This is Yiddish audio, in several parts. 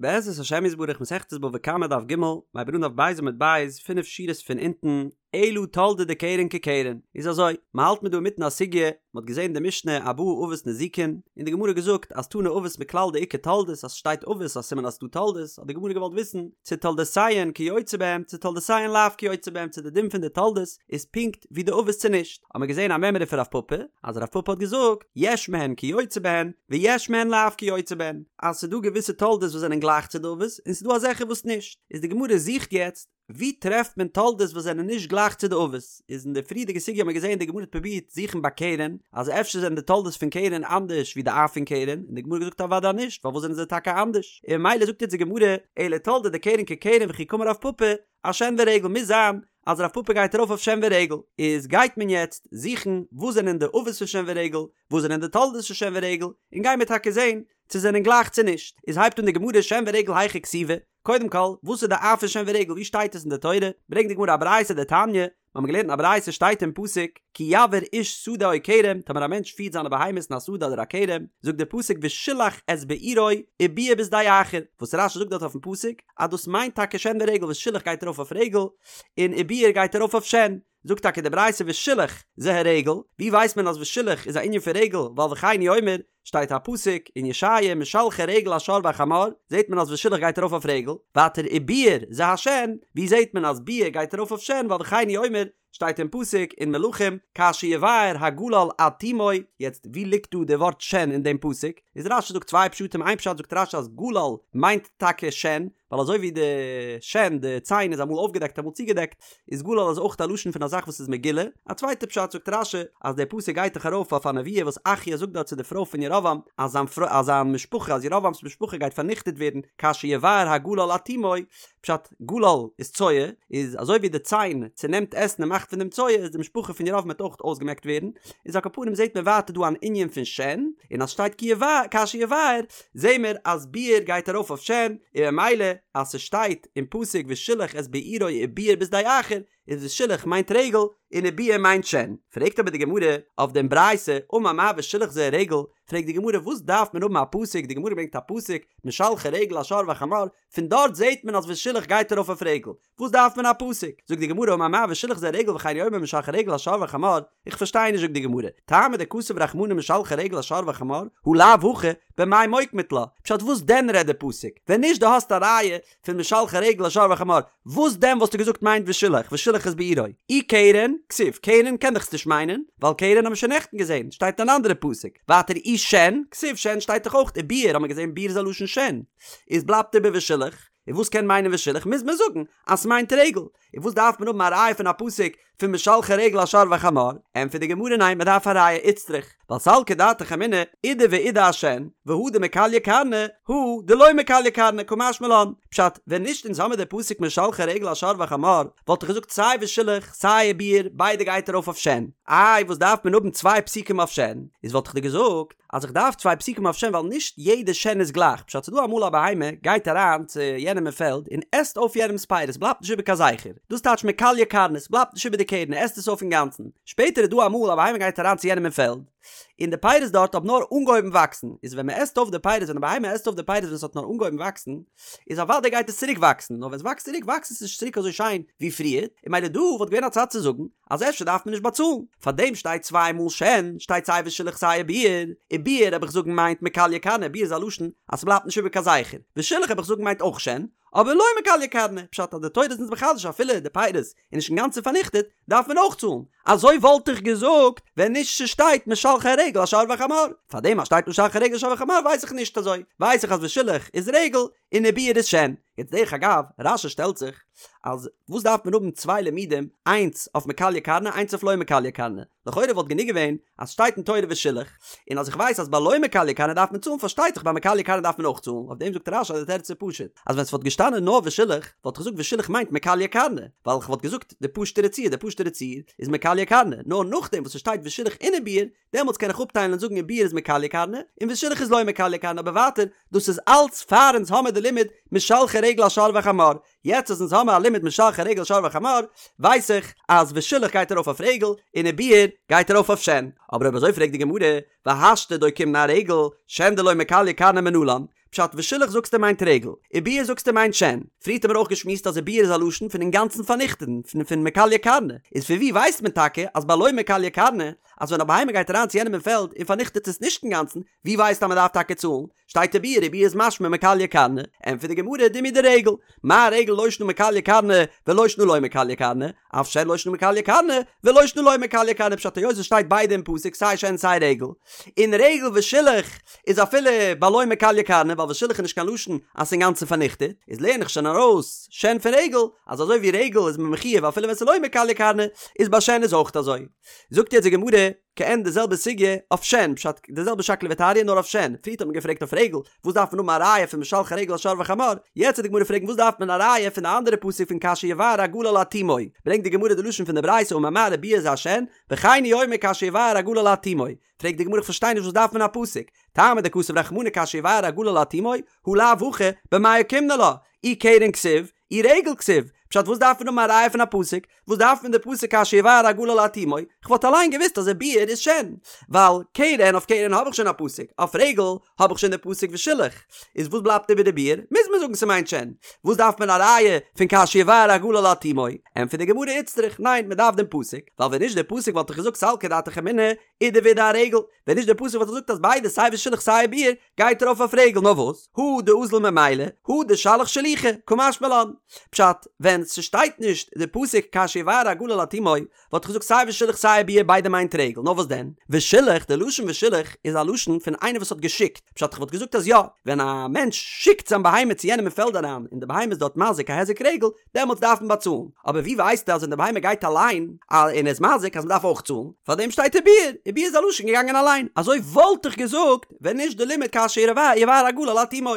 בעזרת השם יתברך מסכת בבא קמא דף ג', מ'הייבט אן דף ב' עמוד ב', פינף שורות פון אונטן, אלא תולדה דקרן כקרן, איז אזוי, מ'האלט מיר דא אינמיטן א סוגיא, מ'האט געזען די משנה ארבעה אבות נזיקין, און די גמרא געזאגט אז תני אבות מכלל דאיכא תולדות אז ס'שטייט אבות א סימן אז ס'דא תולדות, האט די גמרא געוואלט וויסן צו תולדותיהן כיוצא בהם צו תולדותיהן לאו כיוצא בהם צו די דין פון די תולדות איז פונקט ווי די אבות צו נישט, האט מען געזען א מימרא פון רב פפא, אז רב פפא האט געזאגט, יש מהן כיוצא בהן, ויש מהן לאו כיוצא בהן, אז ס'דא געוויסע תולדות וואס זענען גלייך צו די אבות, און ס'דא אזעלכע וואס נישט, איז די גמרא זוכט יעצט, ווי טרעפט מען תולדות וואס זענען נישט גלייך צו די אבות, איז אין די פריערדיגע סוגיא האט מען געזען די גמרא האט פרובירט זוכן ביי קרן, אז אפשר זענען די תולדות פון קרן אנדערש ווי די אב פון קרן, און די גמרא האט געזאגט אוודאי נישט, פארוואס זענען זיי טאקע אנדערש, און ממילא זאגט יעצט די גמרא, אלא תולדה דקרן כקרן וכי קאמר רב פפא, אשן ורגל מוז זיין אז רב פפא גייט ארויף אויף שן ורגל, איז גייט מען יעצט זוכן וואס זענען די אבות פון שן ורגל, וואס זענען די תולדות פון שן ורגל, און גיימיר טאקע זען צו זענען גלייך צו נישט, איז הייבט אן די גמרא שן ורגל היכא כתיבי, קודם כל וואס איז די אב פון שן ורגל ווי שטייט עס אין די תורה, ברענגט די גמרא א ברייתא דתניא, מיר האבן געלערנט אין א ברייתא שטייט אין פסוק כי יבער איש שדה או כרם טאמער א מענטש פירט זיינע בהמות אין א שדה אדער א כרם זאגט דער פסוק ושילח את בעירו ובער בשדה אחר וואס רש"י זאגט דארט אויפן פסוק אז דאס מיינט טאקע שן ורגל ושילח גייט ארויף אויף רגל און ובער גייט ארויף אויף שן זאגט טאקע די ברייתא ושילח זה הרגל ווי ווייסט מען אז ושילח איז א ענין פון רגל ווייל וכן הוא אומר שטייט א פסוק אין ישעיה משלחי רגל השור והחמור, זעט מען אז ושילח גייט ארויף אויף רגל, ווייטער ובער זה השן, ווי זעט מען אז בער גייט ארויף אויף שן ווייל וכן הוא אומר, שטייט אין פסוק אין מלכים כאשר יבער הגלל עד תומו, יעצט ווי ליגט דא די ווארט שן אין דעם פסוק? איז רש"י זאגט צוויי פשטים איין פשט זאגט רש"י אז גלל מיינט טאקע שן, ווייל אזוי ווי די שן, די ציין איז אמאל אויפגעדעקט אמאל צוגעדעקט, איז גלל איז אויך א לשון פון א זאך וואס איז מגולה. א צווייטע פשט זאגט רש"י, אז דער פסוק גייט דאך ארויף אויף א נבואה וואס אחיה זאגט דארט צו די פרוי פון ירבעם, אז זיין פרוי, אז זיין משפחה, אז ירבעם'ס משפחה גייט פארניכטעט ווערן, כאשר יבער הגלל עד תומו, פשט, גלל איז צואה, איז אזוי ווי די ציין צונעמט עסן און מאכט פון דעם צואה, איז די משפחה פון ירבעם וועט אויך אויסגעמעקט ווערן, איז על כל פנים זעט מען ווייטער דא אן ענין פון שן, און אז שטייט כי יבער, כאשר יבער, זעהן מיר אז בער גייט ארויף אויף שן, און ממילא אז ס'שטייט אין פסוק ושילח את בעירו ובער בשדה אחר, איז ושילח מיינט רגל און ובער מיינט שן. פרעגט אבער די גמרא אויף דעם ברייתא, אמר מר ושילח זה הרגל, פרעגט די גמרא וואס דארף מען האבן א פסוק, די גמרא ברענגט א פסוק משלחי רגל השור והחמור, פון דארט זעהט מען אז ושילח גייט ארויף אויף רגל, וואס דארף מען א פסוק? זאגט די גמרא אמר מר ושילח זה הרגל וכן הוא אומר משלחי רגל השור והחמור, איך פארשטיי נישט זאגט די גמרא, טעמא דכתב רחמנא משלחי רגל השור והחמור, הא לאו הכי, במאי מוקמת לה, פשט וואס דען רעדט די פסוק? ווען נישט דו האסט א ראיה פון משלחי רגל השור והחמור, וואס דען וואלסטו געזאגט מיינט ושילח, ושילח את בעירו? אי קרן, כתיב, קרן קען דאך עס נישט מיינען, ווייל קרן האבן מיר שוין נעכטן געזען, שטייט אין אן אנדערע פסוק, ווייטער אי שן, כתיב שן שטייט דאך אויך, ובער האבן מיר געזען בער איז א לשון שן, איז בלייבט איבער ושילח. און וואס קען מיינען ושילח מוז מען זאגן אז ס'מיינט רגל, און וואס דארף מען האבן א ראיה פון א פסוק פון משלחי רגל השור והחמור, ענטפערט די גמרא ניין מען דארף א ראיה איצטריך, ווייל סלקא דעתך אמינא אידי ואידי אשן, והא דמכליא קרנא, הא דלא מכליא קרנא קא משמע לן, פשט, ווען נישט אונז האמיר די פסוק משלחי רגל השור והחמור, וואלט איך געזאגט סיי ושילח סיי ובער ביידע גייט ארויף אויף שן, איי וואס דארף מען האבן צוויי פסוקים אויף שן, איז וואלט איך דיר געזאגט, אז איך דארף צוויי פסוקים אויף שן ווייל נישט יעדע שן איז גלייך, פשט ס'דא אמאל א בהמה גייט אריין צו יענעם אין פעלד און עסט אויף יענעמ'ס פירות בלייבט נישט איבער קיין זכר, דאס טייטש מכליא קרנא ס'בלייבט נישט איבער די קרן ער עסט עס אויף אינגאנצן, שפעטער איז דא אמאל א בהמה גייט אריין צו יענעם אין פעלד און די פירות דארט האבן נאר אנגעהויבן וואקסן, איז ווען מ'עסט אויף די פירות ווען די בהמה עסט אויף די פירות ווען ס'האט נאר אנגעהויבן וואקסן איז אוודאי גייט עס צוריק וואקסן, נאר ווען ס'וואקסט צוריק וואקסט עס נישט צוריק אזוי שיין ווי פריער, און ממילא דא וואלט געווען א צד צו זאגן אז אפשר דארף מען נישט באצאלן, פאר דעם שטייט צוויי מאל שן, שטייט סיי ושילח סיי ובער, ובער האב איך זאגן מיינט מכליא קרנא, בער איז א לשון אז ס'בלייבט נישט איבער קיין זכר, ושילח האב איך זאגן מיינט אויך שן, אבער לא מכליא קרנא, פשט אז די תורה איז אונז מחדש אפילו די פירות איז נישט אינגאנצן פארניכטעט, דארף מען אויך צאלן, אזוי וואלט איך געזאגט ווען נישט ס'שטייט משלחי רגל השור והחמור, פאר דעם אז שטייט משלחי רגל השור והחמור ווייס איך נישט אזוי, ווייס איך אז ושילח איז רגל און ובער איז שן. יעצט דרך אגב, רש"י שטעלט זיך אז וואס דארף מען האבן צוויי לימודים, איינס אויף מכליא קרנא איינס אויף לא מכליא קרנא, לכאורה וואלט גענוג געווען אז שטייט אין תורה ושילח, און אז איך ווייס אז ביי לא מכליא קרנא דארף מען צאלן פארשטייט זיך ביי מכליא קרנא דארף מען אויך צאלן, אויף דעם זאגט רש"י אז די תירוץ איז פשוט, אז ווען ס'וואלט געשטאנען נאר ושילח וואלט איך געזאגט ושילח מיינט מכליא קרנא, ווייל כ'וואלט געזאגט די פשוט'ערע ציור, די פשוט'ערע ציור איז מכליא קרנא, נאר נאכדעם וואס ס'שטייט ושילח און ובער דעמאלטס קען איך אפטיילן און זאגן ובער איז מכליא קרנא, און ושילח איז לא מכליא קרנא, אבער ווייטער, דאס איז אלץ פאר אונז האמער די לימוד משלחי רגל השור והחמור, יעצט אז אונז האמער א לימוד משלחי רגל השור והחמור, ווייס איך אז ושילח גייט ארויף אויף רגל, און ובער גייט ארויף אויף שן. אבער אויב אזוי פרעגט די גמרא, והשתא דאוקימנא ארגל, שן דלא מכליא קרנא מנלן? פשט ושילח זאגסטו מיינט רגל, וביער זאגסטו מיינט שן. פריערט האמיר אויך געשמועסט אז וביער איז א לשון פון אינגאנצן פארניכטען, פון פון מכליא קרנא, איז פון ווי ווייסט מען טאקע אז ביי לא מכליא קרנא, אז ווען א בהמה גייט אריין צו יענעם אין פעלד און פארניכטעט עס נישט אינגאנצן, ווי ווייסטו אז מען דארף טאקע צאלן? שטייט וביער, וביער איז משמע מכליא קרנא, ענטפערט די גמרא דומיא דרגל, מה רגל לא שנא מכליא קרנא ולא שנא לא מכליא קרנא, אף שן לא שנא מכליא קרנא ולא שנא לא מכליא קרנא פשט היות עס שטייט ביידע אין פסוק סיי שן סיי רגל, און רגל ושילח איז אפילו ביי לא מכליא קרנא ווייל ושילח איז נישט קיין לשון אז ס'איז אינגאנצן פארניכטעט, איז לערן איך שוין ארויס שן פון רגל אז אזוי ווי רגל איז מען מחויב אפילו ווען ס'איז לא מכליא קרנא איז ביי שן איז אויך אזוי. זאגט יעצט די גמרא כעין די זעלבע סוגיא אויף שן, פשט, די זעלבע שקלא וטריא נאר אויף שן, פריערט האט מען געפרעגט אויף רגל, וואס דארף מען האבן א ראיה פון משלחי רגל השור והחמור, יעצט וועט די גמרא פרעגן וואס דארף מען א ראיה פון די אנדערע פסוק פון כאשר יבער הגלל עד תומו, ברענגט די גמרא די לשון פון די ברייתא אמר מר וביער זה השן, וכן הוא אומר כאשר יבער הגלל עד תומו, פרעגט די גמרא איך פארשטיי נישט וואס דארף מען א פסוק, טעמא דכתב רחמנא כאשר יבער הגלל עד תומו, הא לאו הכי, במאי אוקימנא לה, אי קרן כתיב, אי רגל כתיב, פשט וואס דארף מען האבן א ראיה פון א פסוק? וואס דארף מען די פסוק כאשר יבער הגלל עד תומו? כ'וואלט אליין געוואוסט אז וביער איז שן, ווייל קרן אויף קרן האב איך שוין א פסוק, אויף רגל האב איך שוין די פסוק ושילח, איז וואס בלייבט איבער וביער? מוז מען זאגן ס'מיינט שן, וואס דארף מען א ראיה פון כאשר יבער הגלל עד תומו? ענטפערט די גמרא איצטריך, ניין מ'דארף דעם פסוק, ווייל ווען נישט די פסוק וואלט איך געזאגט סלקא דעתך אמינא אידי ואידי ארגל, ווען נישט די פסוק וואלט איך געזאגט אז ביידע סיי ושילח סיי וביער גייט ארויף אויף רגל נאר וואס הא דאזיל ממילא הא דשלח שלוחי קא משמע לן פשט ווען ס'שטייט נישט די פסוק כאשר יבער הגלל עד תומו וואלט איך געזאגט סיי ושילח סיי וביער ביידע מיינט רגל נאר וואס דען ושילח די לשון ושילח איז א לשון פון איינער וואס האט געשיקט פשט איך וואלט געזאגט אז יא ווען א מענטש שיקט זיין בהמה צו יענעם אין פעלד אריין און די בהמה איז דארט מזיק א היזק רגל דעמאלטס דארף מען באצאלן, אבער ווי ווייסטו אז ווען די בהמה גייט אליין און איז מזיק אז מען דארף אויך צאלן, פארדעם שטייט וביער, וביער איז א לשון געגאנגען אליין, אזוי וואלט איך געזאגט ווען נישט די לימוד כאשר יבער הגלל עד תומו,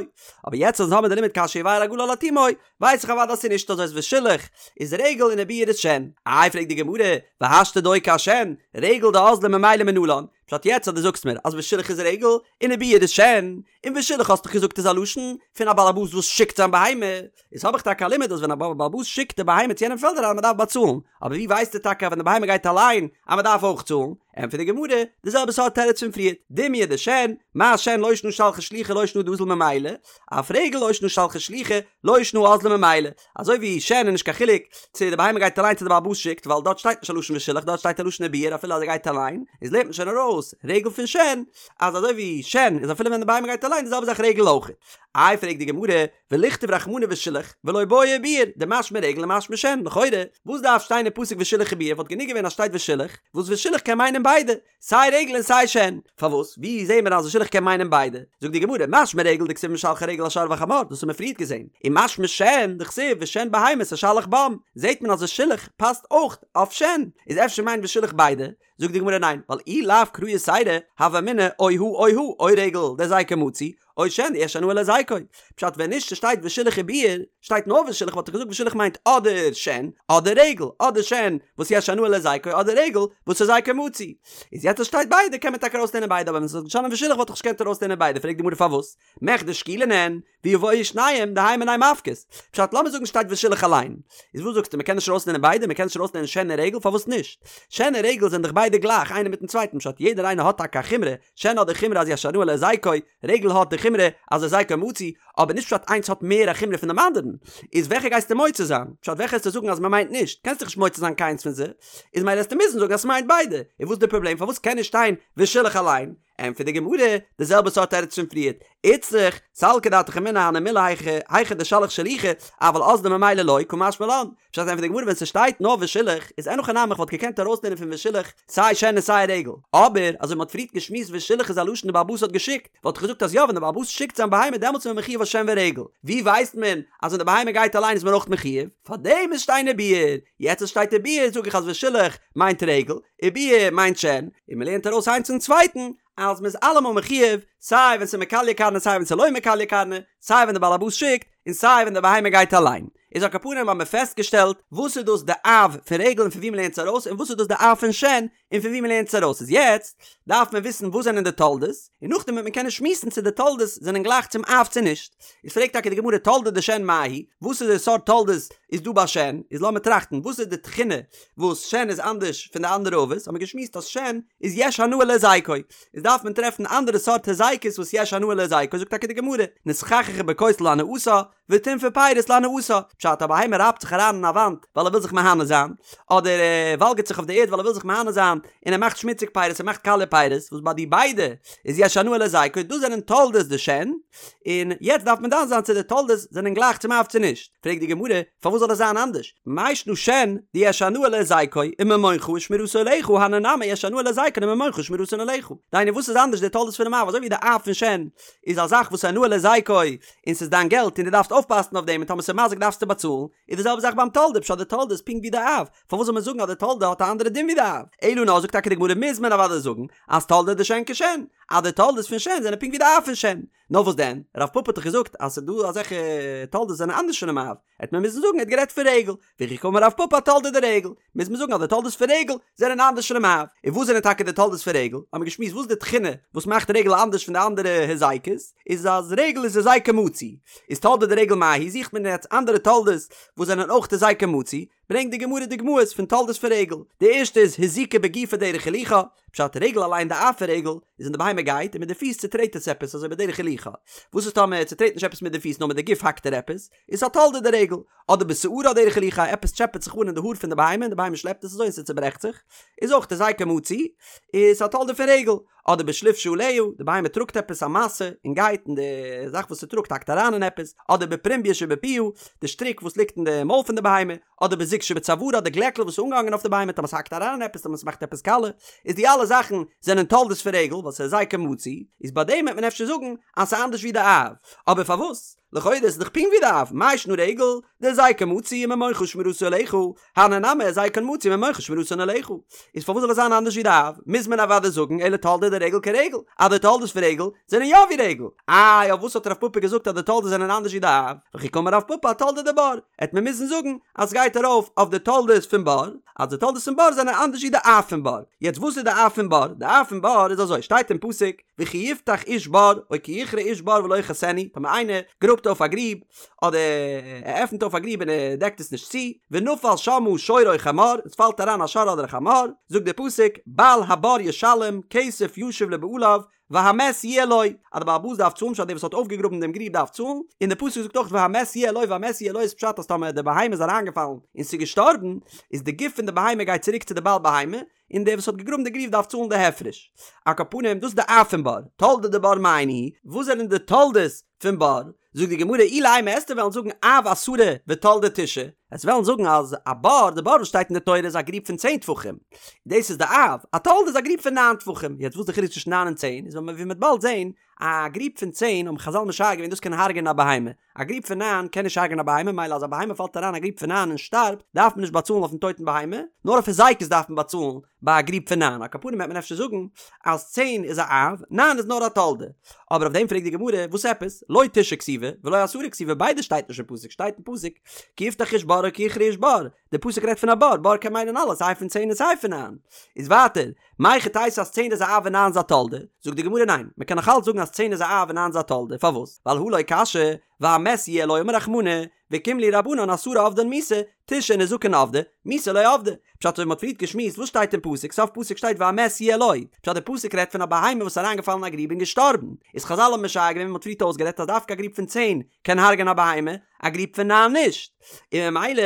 אבער יעצט אז אונז האבן די לימוד כאשר יבער הגלל עד תומו, ווייס איך אוודאי אז ס'איז נישט אזוי אז ושילח איז רגל און וביער איז שן. איי פרעגט די גמרא, והשתא דאוקי אשן, רגל דאזלא ממילא מנלן, פשט יעצט אז דו זאגסט מיר אז ושילח איז רגל און וביער איז שן, און ושילח האסט דאך געזאגט איז א לשון פון א בעל הבית וואס שיקט זיין בהמה, איז האב איך טאקע א לימוד אז ווען א בעל הבית שיקט די בהמה צו יענעם פעלד אריין מען דארף באצאלן, אבער ווי ווייסטו טאקע אז ווען די בהמה גייט אליין אז מען דארף אויך צאלן? ענטפערט די גמרא, די זעלבע סארט תירוץ פון פריערט, דומיא דשן, מה שן לא שנא שלחי שלוחי לא שנא דאזיל ממילא, אף רגל לא שנא שלחי שלוחי לא שנא אזלא ממילא, אזוי ווי שן איז נישט קיין חילוק צו די בהמה גייט אליין צו די בעל הבית שיקט ווייל דארט שטייט נישט א לשון ושילח דארט שטייט א לשון וביער אפילו אז ער גייט אליין, איז לערנט מען שוין ארויס רגל פון שן אז אזוי ווי שן איז אפילו ווען די בהמה גייט אליין די זעלבע זאך רגל אויך. איי פרעגט די גמרא, ולכתוב רחמנא ושילח ולא בעי וביער, דמשמע רגל ומשמע שן, לכאורה וואס דארף שטיין אין פסוק ושילח וביער וואלט גענוג געווען אז שטייט ושילח, וואס ושילח קען מיינען ביידע, סיי רגל און סיי שן, פארוואס ווי זעהן מיר אז ושילח קען מיינען ביידע? זאגט די גמרא, משמע רגל דכתיב משלחי רגל השור והחמור, דאס האבן מיר פריערט געזעהן, און משמע שן דכתיב ושן בהמות אשלח בם, זעהט מען אז ושילח פאסט אויך אויף שן, איז אפשר מיינט ושילח ביידע? זאגט די גמרא ניין, ווייל אי לאו קרא יתירא, הוה אמינא או הא או הא, או רגל דהזיקו מצוי, או שן דיש הנאה להזיקו. פשט ווען נישט ס'שטייט ושילח וביער, שטייט נאר ושילח וואלט איך געזאגט ושילח מיינט אדער שן אדער רגל, אדער שן וואס יש הנאה להזיקו אדער רגל וואס הזיקו מצוי. איז יעצט אז שטייט ביידע קען מען טאקע ארויסלערנען ביידע אבער ווען ס'וואלט געשטאנען ושילח וואלט איך נישט געקענט ארויסלערנען ביידע פרעגט די גמרא פארוואס מכדי שקולין הן ויבואו שניהם דהאי מינייהו מפקת. פשט לאמיר זאגן שטייט ושילח אליין. איז וואס זאגסטו מ'קען נישט ארויסלערנען ביידע מ'קען נישט ארויסלערנען שן און רגל פארוואס נישט? שן און רגל זענען דאך ביידע גלייך איינער מיטן צווייטן פשט יעדער איינער האט טאקע א חומרא שן האט די חומרא אז יש הנאה להזיקו רגל האט די חומרא אז הזיקו מצוי, אבער נישט פשט איינס האט מער א חומרא פון דעם אנדערן, איז וועלכע גייסטו מוציא זיין? פשט וועלכע העסטו זאגן אז מ'מיינט נישט? קענסט דאך נישט מוציא זיין קיינס פון זיי, איז מילא העסטו מוזן זאגן אז ס'מיינט ביידע, און וואס איז די פראבלעם פארוואס קען נישט שטיין ושילח אליין? ענטפערט די גמרא, די זעלבע סארט תירוץ פון פריערט, איצטריך, סלקא דעתך אמינא הני מילי היכא היכא דשלח שלוחי, אבל אזלא ממילא לא, קא משמע לן. פשט ענטפערט די גמרא ווען ס'שטייט נאר ושילח איז אין הכי נמי איך וואלט געקענט ארויסלערנען פון ושילח סיי שן און סיי רגל, אבער אזוי מ'האט פריערט געשמועסט ושילח איז א לשון די בעל הבית האט געשיקט, וואלט איך געזאגט אז יא ווען די בעל הבית שיקט זיין בהמה דעמאלטס איז מען מחויב אויף שן ורגל, ווי ווייסט מען אז ווען די בהמה גייט אליין איז מען אויך מחויב? פארדעם מוז שטיין וביער, יעצט אז שטייט וביער זאג איך אז ושילח מיינט רגל, וביער מיינט שן, און מ'לערנט ארויס איינס צום צווייטן אז מ'איז אלעמאל מחויב סיי ווען ס'איז מכליא קרנא סיי ווען ס'איז לא מכליא קרנא, סיי ווען די בעל הבית שיקט און סיי ווען די בהמה גייט אליין. איז על כל פנים האבן מיר פעסטגעשטעלט וואס איז דאס די אב פון רגל און פון ווי מ'לערנט עס ארויס און וואס איז דאס די אב פון שן. און פון וואו מ'לערנט עס ארויס איז יעצט דארף מען וויסן וואס זענען די תולדות, און נאכדעם וועט מען קענען שמועסן צו די תולדות זענען גלייך צום אב צו נישט. איז פרעגט טאקע די גמרא תולדה דשן מאי היא, וואס איז די סארט תולדות איז דא ביי שן, איז לאמיר טראכטן וואס איז די תכונה וואס שן איז אנדערש פון די אנדערע אבות, האט מען געשמועסט אז שן איז יש הנאה להזיקו, איז דארף מען טרעפן אנדערע סארט הזיקות וואס יש הנאה להזיקו, זאגט טאקע די גמרא, נתחככה בכותל להנאתה, וטינפה פירות להנאתה, פשט א בהמה רייבט זיך אריין אין א וואנט ווייל ער וויל זיך מהנה זיין, אדער ער וואלגערט זיך אויף די ערד ווייל ער וויל זיך מהנה זיין, און ער מאכט שמוציג פירות ער מאכט קאליע פירות, וואס ביי די ביידע איז יש הנאה להזיקו, דאס זענען תולדות דשן, און יעצט דארף מען דן זיין צו די תולדות זענען גלייך צום אב צו נישט, פרעגט די גמרא, פארוואס זאל עס זיין אנדערש, מאי שנא שן דיש הנאה להזיקו וממונך ושמירתו עליך הני נמי יש הנאה להזיקן וממונך ושמירתן עליך, דהיינו וואס איז אנדערש די תולדות פונעם אב, אזוי ווי די אב פון שן איז א זאך וואס הנאה להזיקו און ס'איז דיין געלט און דו דארפסט אויפפאסן אויף דעם און טאמער ס'איז מזיק דארפסטו באצאלן, איז די זעלבע זאך ביים תולדה, פשט די תולדה איז פונקט ווי די אב, פארוואס זאל מען זאגן אז די תולדה האט א אנדערע דין ווי די אב? אלא נאר זאגט טאקע די גמרא מוז מען אוודאי זאגן אז תולדה דשן כשן, אז די תולדות פון שן זענען פונקט ווי די אב פון שן. נאר וואס דען, רב פפא האט דאך געזאגט אז ס'איז דא אזעלכע תולדות וואס זענען אנדערש פונעם אב, העט מען מוזן זאגן ער האט גערעדט פון רגל, וכי קאמר רב פפא אתולדה דרגל, מוז מען זאגן אז די תולדות פון רגל זענען אנדערש פונעם אב. און וואס זענען טאקע די תולדות פון רגל? האבן מיר געשמועסט וואס איז די תכונה וואס מאכט רגל אנדערש פון די אנדערע הזיקות, איז אז רגל איז הזיקו מצוי. איז תולדה דרגל מאי היא זוכט מען יעצט אנדערע תולדות וואס זענען אויך הזיקו מצוי, ברענגט די גמרא דוגמאות פון תולדות פון רגל, די ערשטע איז הזיקה בגופה דרך הילוכה, פשט רגל אליין די אב פון רגל איז ווען די בהמה גייט און מיט די פיס צוטרעט עס עפעס אזוי בדרך הילוכה, וואס איז טאמער ער צוטרעט נישט עפעס מיט די פיס נאר מיט די גוף האקט ער עפעס, איז א תולדה דרגל, אדער בשערה דרך הילוכה עפעס טשעפעט זיך אן אין די האר פון די בהמה און די בהמה שלעפט עס אזוי און ס'צוברעכט זיך, איז אויך הזיקו מצוי, איז א תולדה פון רגל, אדער בשליף שעליה, די בהמה טראגט עפעס א משא און גייט און די זאך וואס ס'טראגט האקט אריין אין עפעס, אדער בפרומביא שבפיה, די שטריק וואס ליגט אין די מויל פון די בהמה, אדער בזוג שבצווארה, די גלעקל וואס איז אנגעהאנגען אויף די בהמה טאמער ס'האקט אריין אין עפעס טאמער ס'מאכט עפעס קאלע, איז די אלע זאכן זענען תולדות פון רגל ווייל ס'איז הזיקו מצוי, איז ביי דעם וועט מען אפשר זאגן אז ס'איז אנדערש ווי די אב, אבער פארוואס? לכאורה איז דאך פונקט ווי די אב, מאי שנא רגל, דהזיקו מצוי וממונך ושמירתו עליך, הני נמי הזיקן מצוי וממונך ושמירתן עליך. איז פארוואס זאל עס זיין אנדערש ווי די אב? מוז מען אוודאי זאגן אלא תולדה דרגל כרגל, אז די תולדות פון רגל זענען יא ווי רגל. איי אויף וואס האט רב פפא געזאגט אז די תולדות זענען אנדערש ווי די אב? וכי קאמר רב פפא אתולדה דבור, העט מען מוזן זאגן אז סגייט ארויף אויף די תולדות פון בור, אז די תולדות פון בור זענען אנדערש ווי די אב פון בור. יעצט וואס איז די אב פון בור? די אב פון בור איז אזוי, שטייט אין פסוק, וכי יפתח איש בור, או כי יכרה איש בור ולא יכסנו, טאמער איינער גראבט אויף א גריב, אדער ער עפנט אויף א גריב און ער דעקט עס נישט צו, ונפל שמה שור או חמור, עס פאלט אריין א שור אדער א חמור, זאגט דער פסוק, בעל הבור ישלם, כסף ישיב לבעליו, והמת יהיה לו, אז דער בעל הבית דארף צאלן, פשט דער וואס האט אויפגעגראבן דעם גריב דארף צאלן, און דער פסוק זאגט אויך והמת יהיה לו, והמת יהיה לו איז פשט אז טאמער די בהמה איז אריינגעפאלן און ס'איז געשטארבן, איז די גוף פון די בהמה גייט צוריק צו די בעל בהמה, און דער וואס האט געגראבן די גריב דארף צאלן די הפרש. על כל פנים, דאס איז די אב פון בור, תולדה דבור מאי ניהו, וואס זענען די תולדות פון בור? זאגט די גמרא אילימא עסטו וועלן זאגן אב עשרה ותולדה תשעה, עסט וועלן זאגן אז א בור, די בור וואס שטייט אין די תורה איז א גריב פון צען טפחים, דאס איז די אב, א תולדה איז א גריב פון ניין טפחים, יעצט וואס איז די חילוק צווישן ניין און צען, איז ווי מ'וועט באלד זען, א גריב פון צען האבן חזל משער געווען דאס קען הרג'ענען א בהמה, א גריב פון ניין קען נישט הרג'ענען א בהמה, מילא אז א בהמה פאלט אריין א גריב פון ניין און שטארבט, דארף מען נישט באצאלן אויפן טויטן בהמה, נאר אויף הזיקות דארף מען באצאלן ביי א גריב פון ניין, על כל פנים וועט מען אפשר זאגן אז צען איז א אב, ניין איז נאר א תולדה. אבער אויף דעם פרעגט די גמרא, וואס עפעס? לא תשעה כתיבי, ולא עשרה כתיבי, ביידע שטייט נישט אין פסוק, שטייט אין פסוק, כי יפתח איש בור או כי יכרה איש בור, די פסוק רעדט פון א בור, בור קען מיינען אלעס, סיי פון צען און סיי פון ניין. איז ווייטער, מהיכי תיתי אז צען איז א אב און ניין איז א תולדה? זאגט די גמרא ניין, מען קען נאך אלץ זאגן אז צען איז א אב און ניין איז א תולדה, פארוואס? ווייל הא לא קשיא, והמת יהיה לו אמר רחמנא, וקים להו רבנן עשרה עבדן מיתה, תשעה נזקין עבדי, מיתה לא עבדי. פשט אזוי ווי מ'האט פריערט געשמועסט וואס שטייט אין פסוק, סוף פסוק שטייט והמת יהיה לו, פשט די פסוק רעדט פון א בהמה וואס איז אריינגעפאלן אין א גריב און געשטארבן, איז חזל האבן משער געווען ווי מ'האט פריערט אויסגערעדט אז דווקא א גריב פון צען קען הרג'ענען א בהמה, א גריב פון ניין נישט, און ממילא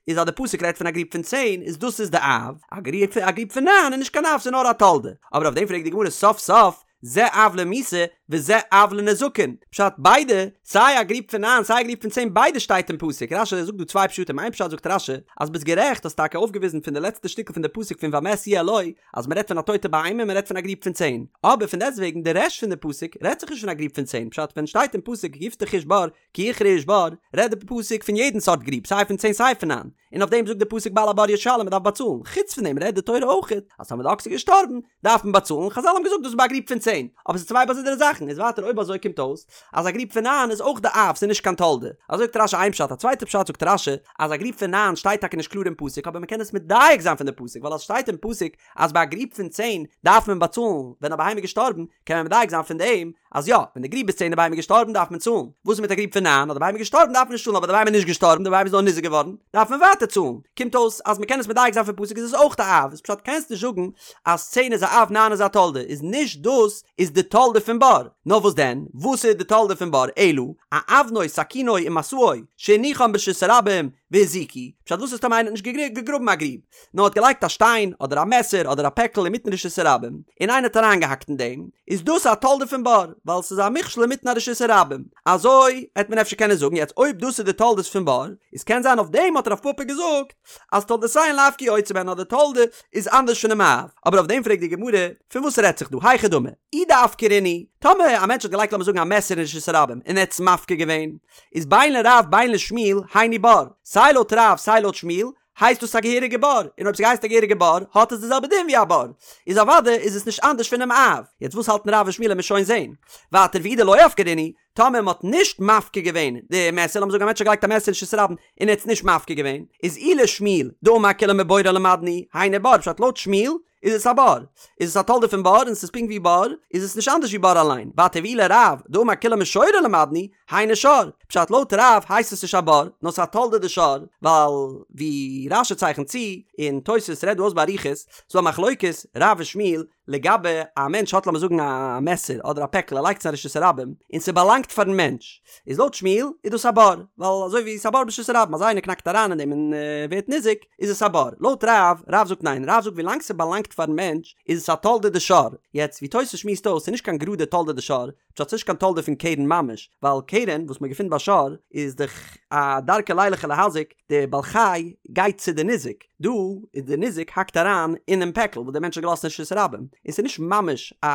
איז אז די פסוק רעדט פון א גריב פון צען איז דאס איז די אב, א גריב א גריב פון ניין איז נישט קיין אב ס'איז נאר א תולדה, אבער אויף דעם פרעגט די גמרא סוף סוף זה אב למיתה וזה אב לנזקין, פשט ביידע סיי א גריב פון ניין סיי א גריב פון צען ביידע שטייט אין פסוק, רש"י זאגט דא צוויי פשטים איין פשט זאגט רש"י אז ביסט גערעכט האסט טאקע אויפגעוויזן פון די לעצטע שטיקל פון די פסוק פון והמת יהיה לו אז מ'רעדט פון א טויטע בהמה און מ'רעדט פון א גריב פון צען, אבער פון דעסטוועגן די רעשט פון די פסוק רעדט זיך נישט פון א גריב פון צען, פשט ווען שטייט אין פסוק יפתח איש בור כי יכרה איש בור, רעדט די פסוק פון יעדן סארט גריב סיי פון צען סיי פון ניין, און אויף דעם זאגט די פסוק בעל הבור ישלם מ'דארף באצאלן, חוץ פון דעם רעדט די תורה אויך אז טאמער די אקס איז געשטארבן דארף מען באצאלן, חזל האבן געזאגט דאס איז ביי א גריב פון צען, אבער ס'איז צוויי באזונדערע זאכן. זאכן, איז ווייטער אויב אזוי קומט אויס אז א גריב פון ניין איז אויך די אב, ס'איז נישט קיין תולדה. אזוי זאגט רש"י איין פשט, א צווייטע פשט זאגט רש"י אז א גריב פון ניין שטייט טאקע נישט קלאר אין פסוק אבער מ'קען עס מדייק זיין פון די פסוק ווייל אז ס'שטייט אין פסוק אז ביי א גריב פון צען דארף מען באצאלן ווען א בהמה איז געשטארבן קען מען מדייק זיין פון דעם אז יא, ווען די גריב איז צען די בהמה איז געשטארבן דארף מען צאלן, וואס איז מיט א גריב פון ניין אז די בהמה איז געשטארבן דארף מען נישט צאלן אבער די בהמה איז נישט געשטארבן די בהמה איז נאר ניזוק געווארן דארף מען ווייטער צאלן, קומט אויס אז מען קען עס מדייק זיין פון פסוק איז עס אויך א אב, איז פשט קענסט נישט זאגן אז צען איז א אב ניין איז א תולדה איז נישט דאס איז די תולדה פון בור, נאר וואס דען וואס איז די תולדה פון בור אלא אאבנו סכינו ומשאו שהניחן ברשות הרבים והזיקו, פשט וואס איז טאמער איינער האט נישט געגראבן א גריב נאר האט געלייגט א שטיין אדער א מעסער אדער א פעקל אינמיטן רשות הרבים און איינער האט אריינגעהאקט אין דעם, איז דאס א תולדה פון בור, ווייל ס'איז א מכשול אינמיטן א רשות הרבים. אזוי העט מען אפשר קענען זאגן, יעצט אויב דאס איז די תולדות פון בור, איז קען זיין אויף דעם האט רב פפא געזאגט אז תולדותיהן לאו כיוצא בהן אז די תולדה איז אנדערש פונעם אב, אבער אויף דעם פרעגט די גמרא, פון וואס רעדט זיך דא, היכי דמי, אי דאפקרינהו, טאמער א מענטש האט געלייגט לאמיר זאגן א מעסער אין רשות הרבים און ער האט עס מפקיר געווען, איז בין לרב בין לשמואל היינו בור, סיי לויט רב סיי לויט שמואל הייסט דאס א געהעריגע בור, און אויב ס'הייסט א געהעריגע בור, האט עס די זעלבע דין ווי א בור, איז אוודאי איז עס נישט אנדערש פונעם אב. יעצט וואס האלטן רב און שמואל עמיר שוין זעהן. ווייטער ואי דלא אפקרינהו, טאמער מ'האט נישט מפקיר געווען די מעסער, לאמיר זאגן א מענטש האט געלייגט א מעסער אין רשות הרבים און ער האט עס נישט מפקיר געווען, איז אי לשמואל דאמר כולן מבורו למדנו, היינו בור, פשט לויט שמואל איז עס א בור, איז עס א תולדה פון בור און עס איז פונקט ווי בור, איז עס נישט אנדערש ווי בור אליין, ווייטער ואי לרב דאמר כולן משורו למדנו, היינו שור, פשט לויט רב הייסט עס נישט א בור, נאר ס'איז א תולדה דשור, ווייל ווי רש"י צייכנט צו, און תוס' רעדט דא אויס באריכות, ס'דא א מחלוקת רב און שמואל לגבי א מענטש האט לאמיר זאגן א מעסער אדער א פעקל ער לייגט עס אין רשות הרבים און ס'באלאנגט פארן מענטש, איז לויט שמואל איז דאס א בור, ווייל אזוי ווי ס'איז א בור ברשות הרבים אז איינער קנאקט אריין אין דעם און ווערט ניזוק, איז עס א בור. לויט רב, רב זאגט ניין, רב זאגט ווילאנג ס'באלאנגט פארן מענטש איז עס א תולדה דשור, יעצט ווי תוס' שמועסט אויס ס'איז נישט קיין גראדע תולדה דשור, פשט ס'נישט קיין תולדה פון קרן ממש, ווייל קרן וואס מ'געפינט ביי שור איז דאך א דרכו לילך ולהזיק, די בעל חי גייט צו די ניזק, דא איז די ניזק האקט אריין אינעם פעקל וואס דער מענטש האט געלאזט אין רשות הרבים, און ס'איז נישט ממש א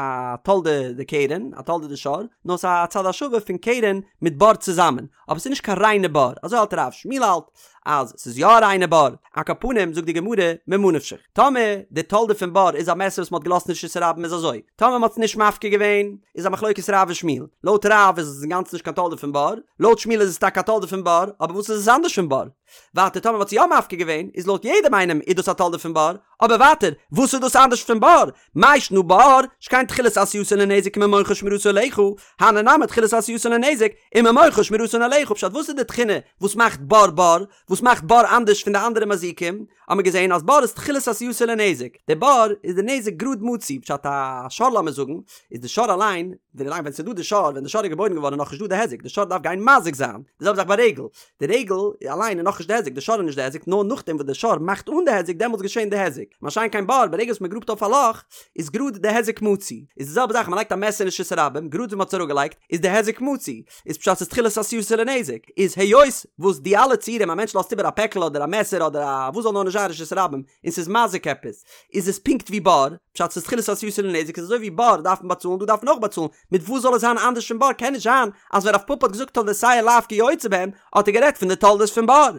תולדה דקרן, א תולדה דשור, נאר ס'איז א צד השווה פון קרן מיט בור צוזאמען, אבער ס'איז נישט קיין ריינע בור, אזוי האלט רב, שמואל האלט אז ס'איז יא א ריינע בור, על כל פנים זאגט די גמרא ממה נפשך, טאמער די תולדה פון בור איז א מעסער וואס מ'האט געלאזט אין רשות הרבים איז אזוי, טאמער מ'האט עס נישט מפקיר געווען איז א מחלוקת רב און שמואל, לויט רב איז עס אינגאנצן נישט קיין תולדה פון בור, לויט שמואל איז עס טאקע א תולדה פון בור, אבער וואס איז עס אנדערש פון בור? ווייטער טאמער מ'האט עס יא מפקיר געווען איז לויט יעדעם איינעם איז דאס א תולדה פון בור, אבער ווייטער וואס איז דאס אנדערש פון בור? מאי שנא בור, שכן תחילת עשייתן לנזק וממונך שמירתו עליך, הני נמי תחילת עשייתן לנזק וממונך שמירתן עליך, פשט וואס איז די תכונה וואס מאכט בור בור? וואס מאכט בור אנדערש פון די אנדערע מזיקים? האט מען געזען אז בור איז תחילת עשייתו לנזק, די בור איז די נזק גראד מצוי, פשט א שור לאמיר זאגן, איז די שור אליין, ווילאנג ווען ס'איז דא די שור, ווען די שור איז געבוירן געווארן איז נאכנישט דא די היזק, די שור דארף גיין מזיק זיין, די זעלבע זאך ביי רגל, די רגל אליין איז נאכנישט די היזק, די שור איז נישט די היזק, נאר נאכדעם וואס די שור מאכט אן די היזק דעמאלטס געשען די היזק, מה שאין כן בור, ברגע וואס מ'גראבט אויף א לאך, איז גראד די היזק מצוי, איז די זעלבע זאך מ'לייגט א מעסער אין רשות הרבים, גראד ווי מ'האט עס אראפגעלייגט, איז די היזק מצוי, איז פשט ס'איז תחילת עשייתו לנזק, איז היות וואס די אלע ציורים א מענטש לאזט איבער א פעקל אדער א מעסער אדער א וואס זאל נאר נישט זיין רשות הרבים און ס'איז מזיק עפעס, איז עס פונקט ווי בור, פשט ס'איז תחילת עשייתו לנזק איז אזוי ווי בור דארף מען באצאלן דא דארף מען אויך באצאלן, מיט וואס זאל עס זיין אנדערש פון בור קען נישט זיין אז ווען רב פפא האט געזאגט תולדותיהן לאו כיוצא בהן האט ער גערעדט פון די תולדות פון בור.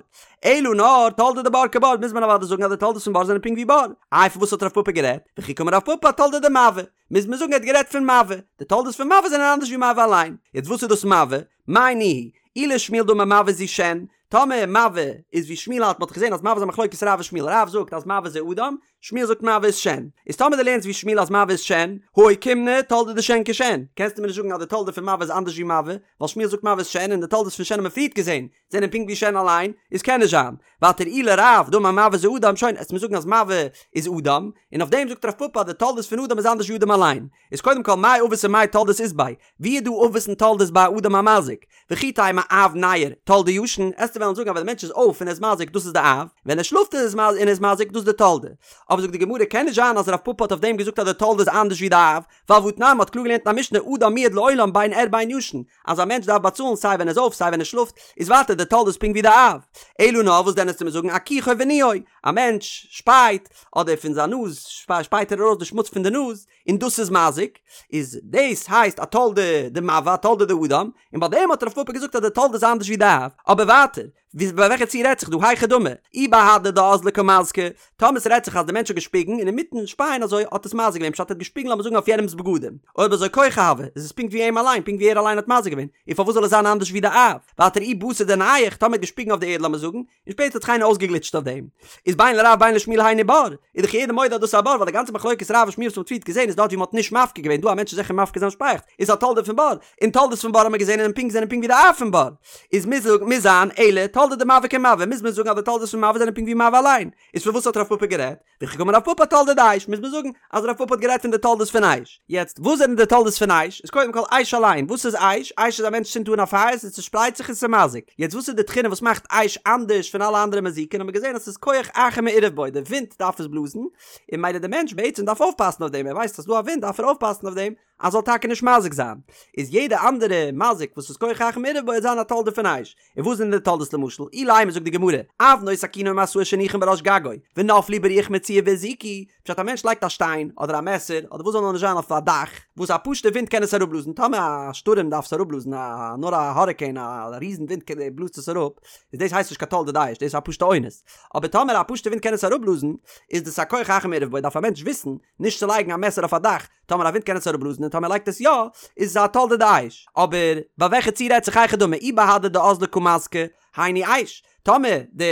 אלא נאר תולדה דבור כבר מוז מען אוודאי זאגן אז די תולדות פון בור זענען פונקט ווי בור. איי פון וואס האט רב פפא גערעדט? וכי קאמר רב פפא אתולדה דמבעה. מוז מען זאגן ער האט גערעדט פון מבעה. די תולדות פון מבעה זענען אנדערש ווי מבעה אליין. יעצט וואס איז דאס מבעה? מאי ניהו? אי לשמואל דאמר מבעה זו שן, טאמער מבעה איז ווי שמואל האלט, מען האט געזען אז מבעה איז א מחלוקת רב און שמואל, רב זאגט אז מבעה זה אדם, שמואל זאגט מבעה איז שן. איז טאמער דו לערנסט ווי שמואל אז מבעה איז שן, הא אוקימנא תולדה דשן כשן, קענסטו מיר נישט זאגן אז די תולדה פון מבעה איז אנדערש ווי מבעה, ווייל שמואל זאגט מבעה איז שן און די תולדות פון שן האבן מיר פריערט געזען זענען פונקט ווי שן אליין, איז קען נישט זיין. ווייטער אי לרב דאמר מבעה זה אדם, שוין, עסט מיר זאגן אז מבעה איז אדם, און אויף דעם זאגט רב פפא אז די תולדות פון אדם איז אנדערש ווי אדם אליין. איז קודם כל מאי אבות ומאי תולדות אית ביה, ווי איז דא אבות און תולדות ביי א אדם המזיק? וכי תימא אב ניעור, תולדה ישן, עסטו וועלן זאגן אז ווען די מענטש איז אויף און ער איז מזיק דאס איז די אב, ווען ער שלאפט און ער איז מזיק דאס איז די תולדה. אבער זאגט די גמרא קען נישט זיין אז רב פפא האט אויף דעם געזאגט אז די תולדה איז אנדערש ווי די אב, ווייל והתנן מ'האט קלאר געלערנט אין א משנה אדם מועד לעולם בין ער בין ישן, אז א מענטש דארף באצאלן סיי ווען ער איז אויף סיי ווען ער שלאפט, איז ווייטער די תולדה איז פונקט ווי די אב. אלא נאר וואס דען עסטו מיר זאגן אכיחו וניעו, א מענטש שפייט, אדער פון זיין נאז שפייט ער ארויס די שמוץ פון די נאז, און דאס איז מזיק, איז דאס הייסט א תולדה דמבעה א תולדה דאדם, און ביי דעם האט רב פפא געזאגט אז די תולדה איז אנדערש ווי די אב, אבער ווייטער, ווי ביי וועלכע ציור רעדט זיך דא? היכי דמי, אי בהדי דאזלא קא מזקי, טאמער ס'רעדט זיך אז די מענטש האט געשפיגן און אינמיטן שפייען אזוי האט עס מזיק געווען פשט ער האט געשפיגן לאמיר זאגן אויף יענעמ'ס בגדים, אויב אזוי כחו הוי, איז עס פונקט ווי אים אליין, פונקט ווי ער אליין האט מזיק געווען, און פארוואס זאל עס זיין אנדערש ווי די אב? ווייטער אי בתר דנייח, טאמער ער האט געשפיגן אויף די ערד לאמיר זאגן, און שפעטער האט זיך איינער אויסגעגליטשט אויף דעם, איז בין לרב בין לשמואל היינו בור, איז דאך יעדער מודה אז דאס איז א בור, ווייל די גאנצע מחלוקת רב און שמואל וואס מ'האט פריערט געזען איז דארט ווי מ'האט נישט מפקיר געווען, דא א מענטש איז זיכער מפקיר זיין שפייעכץ, איז א תולדה פון בור, און תולדות פון בור האט מען געזען און פונקט זענען פונקט ווי די אב פון בור, איז מוז מוז זיין אלא תולדה דמבעה כמבעה, מוז מען זאגן אז די תולדות פון מבעה זענען פונקט ווי מבעה אליין, איז פון וואס האט רב פפא גערעדט? וכי קאמר רב פפא אתולדה דאש, מוז מען זאגן אז רב פפא האט גערעדט פון די תולדות פון אש. יעצט, וואס זענען די תולדות פון אש? איז קודם כל אש אליין, וואס איז אש? אש איז א מענטש צינדט אן א פייער, ס'צושפרייט זיך און ס'מזיק. יעצט וואס איז די תכונה וואס מאכט אש אנדערש פון אלע אנדערע מזיקין? האט מען געזען אז ס'איז כח אחר מעורב בו, די ווינט דארף עס בלאזן, און ממילא די מענטש בעצם דארף אויפפאסן אויף דעם, ער ווייסט אז ס'דא א ווינט דארף ער אויפפאסן אויף דעם, אז זאל טאקע נישט מזיק זיין, איז יעדע אנדערע מזיק וואס איז כח אחר מעורב בו וועט זיין א תולדה פון אש. און וואס זענען די תולדות למשל, אילימא זאגט די גמרא, אבנו סכינו ומשאו שהניחן בראש גגו, ונפלו ברוח מצויה והזיקו, פשט א מענטש לייגט א שטיין, אדער א מעסער, אדער וואס זאל נאר נישט זיין אויף א דאך, וואס א פשוטע ווינט קען עס אראפבלאזן, טאמער א שטורעם דארף עס אראפבלאזן, א נאר א האריקעין, א ריזן ווינט בלאזט עס אראפ, איז דאס הייסט נישט קיין תולדה דאש, דאס איז א פשוטע אונס. אבער טאמער א פשוטע ווינט קען עס אראפבלאזן, איז דאס א כח אחר מעורב בו, דארף א מענטש וויסן, נישט צו לייגן א מעסער אויף א דאך, טאמער א ווינט קען עס אראפבלאזן און טאמער ער לייגט עס יא, איז עס א תולדה דאש. אבער ביי וועלכע ציור רעדט זיך היכי דמי אי בהדי דאזלא קא מזקי, היינו אש. טאמער די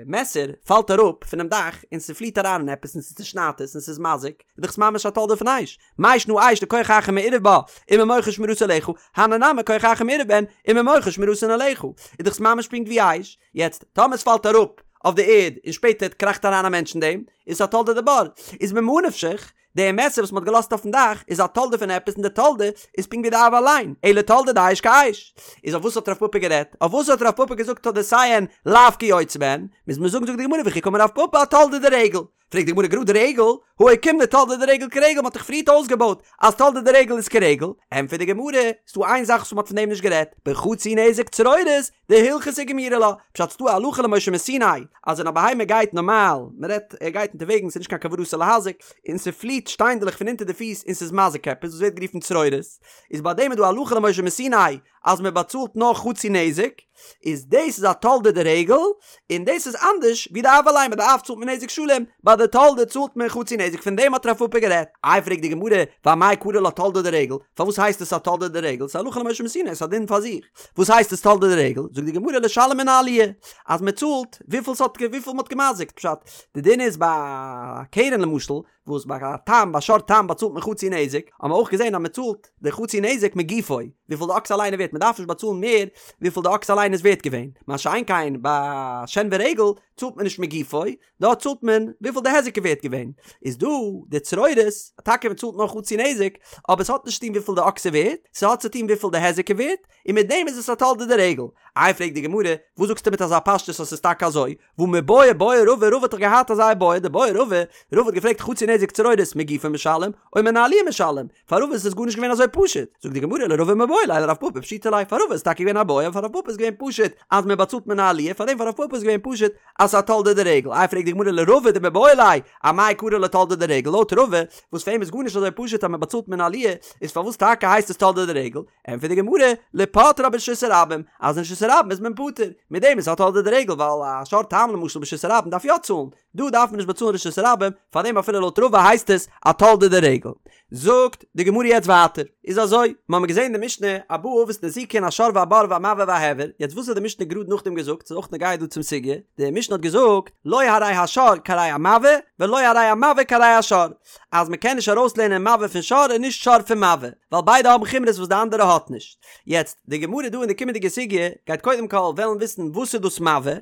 מעסער פאלט אראפ פונעם דאך און ס'פליעט אריין אין עפעס און ס'צושניידט עס און ס'איז מזיק, איז דאך עס ממש א תולדה פון אש. מאי שנא אש דכח אחר מעורב בה וממוחה שמירתו עליך, הני נמי כח אחר מעורב בהן וממוחה שמירתן עליך. איז דאך עס ממש פונקט ווי אש. יעצט, טאמער עס פאלט אראפ אויף די ערד און שפעטער קראכט אריין א מענטש אין דעם, איז עס א תולדה דבור. איז ממה נפשך, די מעסער וואס מ'האט געלאזט אויפן דאך איז א תולדה פון עפעס און די תולדה איז פונקט ווי די אב אליין, אלא תולדה דאש כאש. איז אויף וואס האט רב פפא גערעדט? אויף וואס האט רב פפא געזאגט תולדותיהן לאו כיוצא בהן? מוז מען זאגן זאגט די גמרא וכי קאמר רב פפא אתולדה דרגל. פרעגט די גמרא גראד רגל? הא אוקימנא תולדה דרגל כרגל מ'האט דאך פריערט אויסגעבויט אז תולדה דרגל איז כרגל. ענטפערט די גמרא, ס'דא איין זאך וואס מ'האט פון דעם נישט גערעדט, בחצי נזק צרורות, דהלכתא גמירי לה, פשט ס'דא א הלכה למשה מסיני אז ווען א בהמה גייט נארמאל, מ'רעדט ער גייט אונטערוועגנס ס'איז נישט קיין כוונתו להזיק, און ס'פליעט שטיינדלעך פון אונטער די פיס און ס'איז מזיק עפעס וואס ווערט גערופן צרורות, איז ביי דעם איז דא הלכה למשה מסיני אז מ'באצאלט נאר חצי נזק, איז דאס איז א תולדה דרגל, און דאס איז אנדערש ווי די אב אליין, ביי די אב צאלט מען נזק שלם, ביי די תולדה צאלט מען חצי נזק, פון דעם האט רב פפא גערעדט. איי פרעגט די גמרא, ואמאי קרי לה תולדה דרגל, פארוואס הייסט עס א תולדה דרגל, ס'איז הלכה למשה מסיני, ס'איז א דין פאר זיך. וואס הייסט עס תולדה דרגל? זאגט די גמרא לשלם מן העליה, אז מען צאלט וויפיל ס'האט וויפיל מ'האט געמזיקט, פשט, די דין איז ביי א קרן למשל, וואס ביי א תם ביי שור תם באצאלט מען חצי נזק, האט מען אויך געזען אז מען צאלט די חצי נזק מגופו, וויפיל די אקס אליין איז ווערט, מען דארף נישט באצאלן מער וויפיל די אקס אליין איז ווערט געווען, מה שאין כן ביי שן ורגל צאלט מען נישט מגופו, דארט צאלט מען וויפיל די היזק איז ווערט געווען, איז דא די צרורות, טאקע מען צאלט נאר חצי נזק, אבער עס האט נישט צוטון וויפיל די אקס איז ווערט, ס'האט צוטון וויפיל די היזק איז ווערט, און מיט דעם איז עס א תולדה דרגל. איי פרעגט די גמרא, וואס זאגסטו מיט אזא פשטות אז ס'איז טאקע אזוי, והא מיבעיא בעי רבא, רבא האט דאך געהאט אזא איבעיא, דבעי רבא, רבא האט געפרעגט חצי נזק צרורות מגופו משלם, או מן העליה משלם, פאר רבא איז עס גארנישט געווען אזוי פשוט, זאגט די גמרא לרבא מיבעיא ליה לרב פפא פשיטא ליה, פאר רבא איז טאקע געווען א בעיא אבער פאר רב פפא איז געווען פשוט אז מען באצאלט מן העליה, פארדעם פאר רב פפא איז געווען פשוט אז ס'איז א תולדה דרגל, איי פרעגט די גמרא לרבא דמיבעיא ליה, אמאי קרי לה תולדה דרגל, לויט רבא וואס פאר אים איז גארנישט אזוי פשוט אז מען באצאלט מן העליה, איז פארוואס טאקע הייסט עס תולדה דרגל, ענטפערט די גמרא, לפוטרה ברשות הרבים, אז אין רשות הרבים איז מען פטור, מיט דעם איז א תולדה דרגל ווייל א שור תם למשל ברשות הרבים דארף יא צאלן, דא דארף מען נישט באצאלן רשות הרבים, פארדעם אפילו לויט רבא הייסט עס א תולדה דרגל. זאגט די גמרא יעצט ווייטער, איז אזוי, מ'האמיר געזען אין די משנה, ארבעה אבות נזיקין השור והבור והמבעה וההבער, יעצט וואס האט די משנה גראד נאכדעם געזאגט, ס'איז אויך נוגע דא צום סוגיא, די משנה האט געזאגט, לא הרי השור כהרי המבעה, ולא הרי המבעה כהרי השור, אז מ'קען נישט ארויסלערנען מבעה פון שור און נישט שור פון מבעה, ווייל ביידע האבן חומרות וואס די אנדערע האט נישט. יעצט, די גמרא דא אין די קומענדיגע סוגיא גייט קודם כל וועלן וויסן וואס איז דאס מבעה,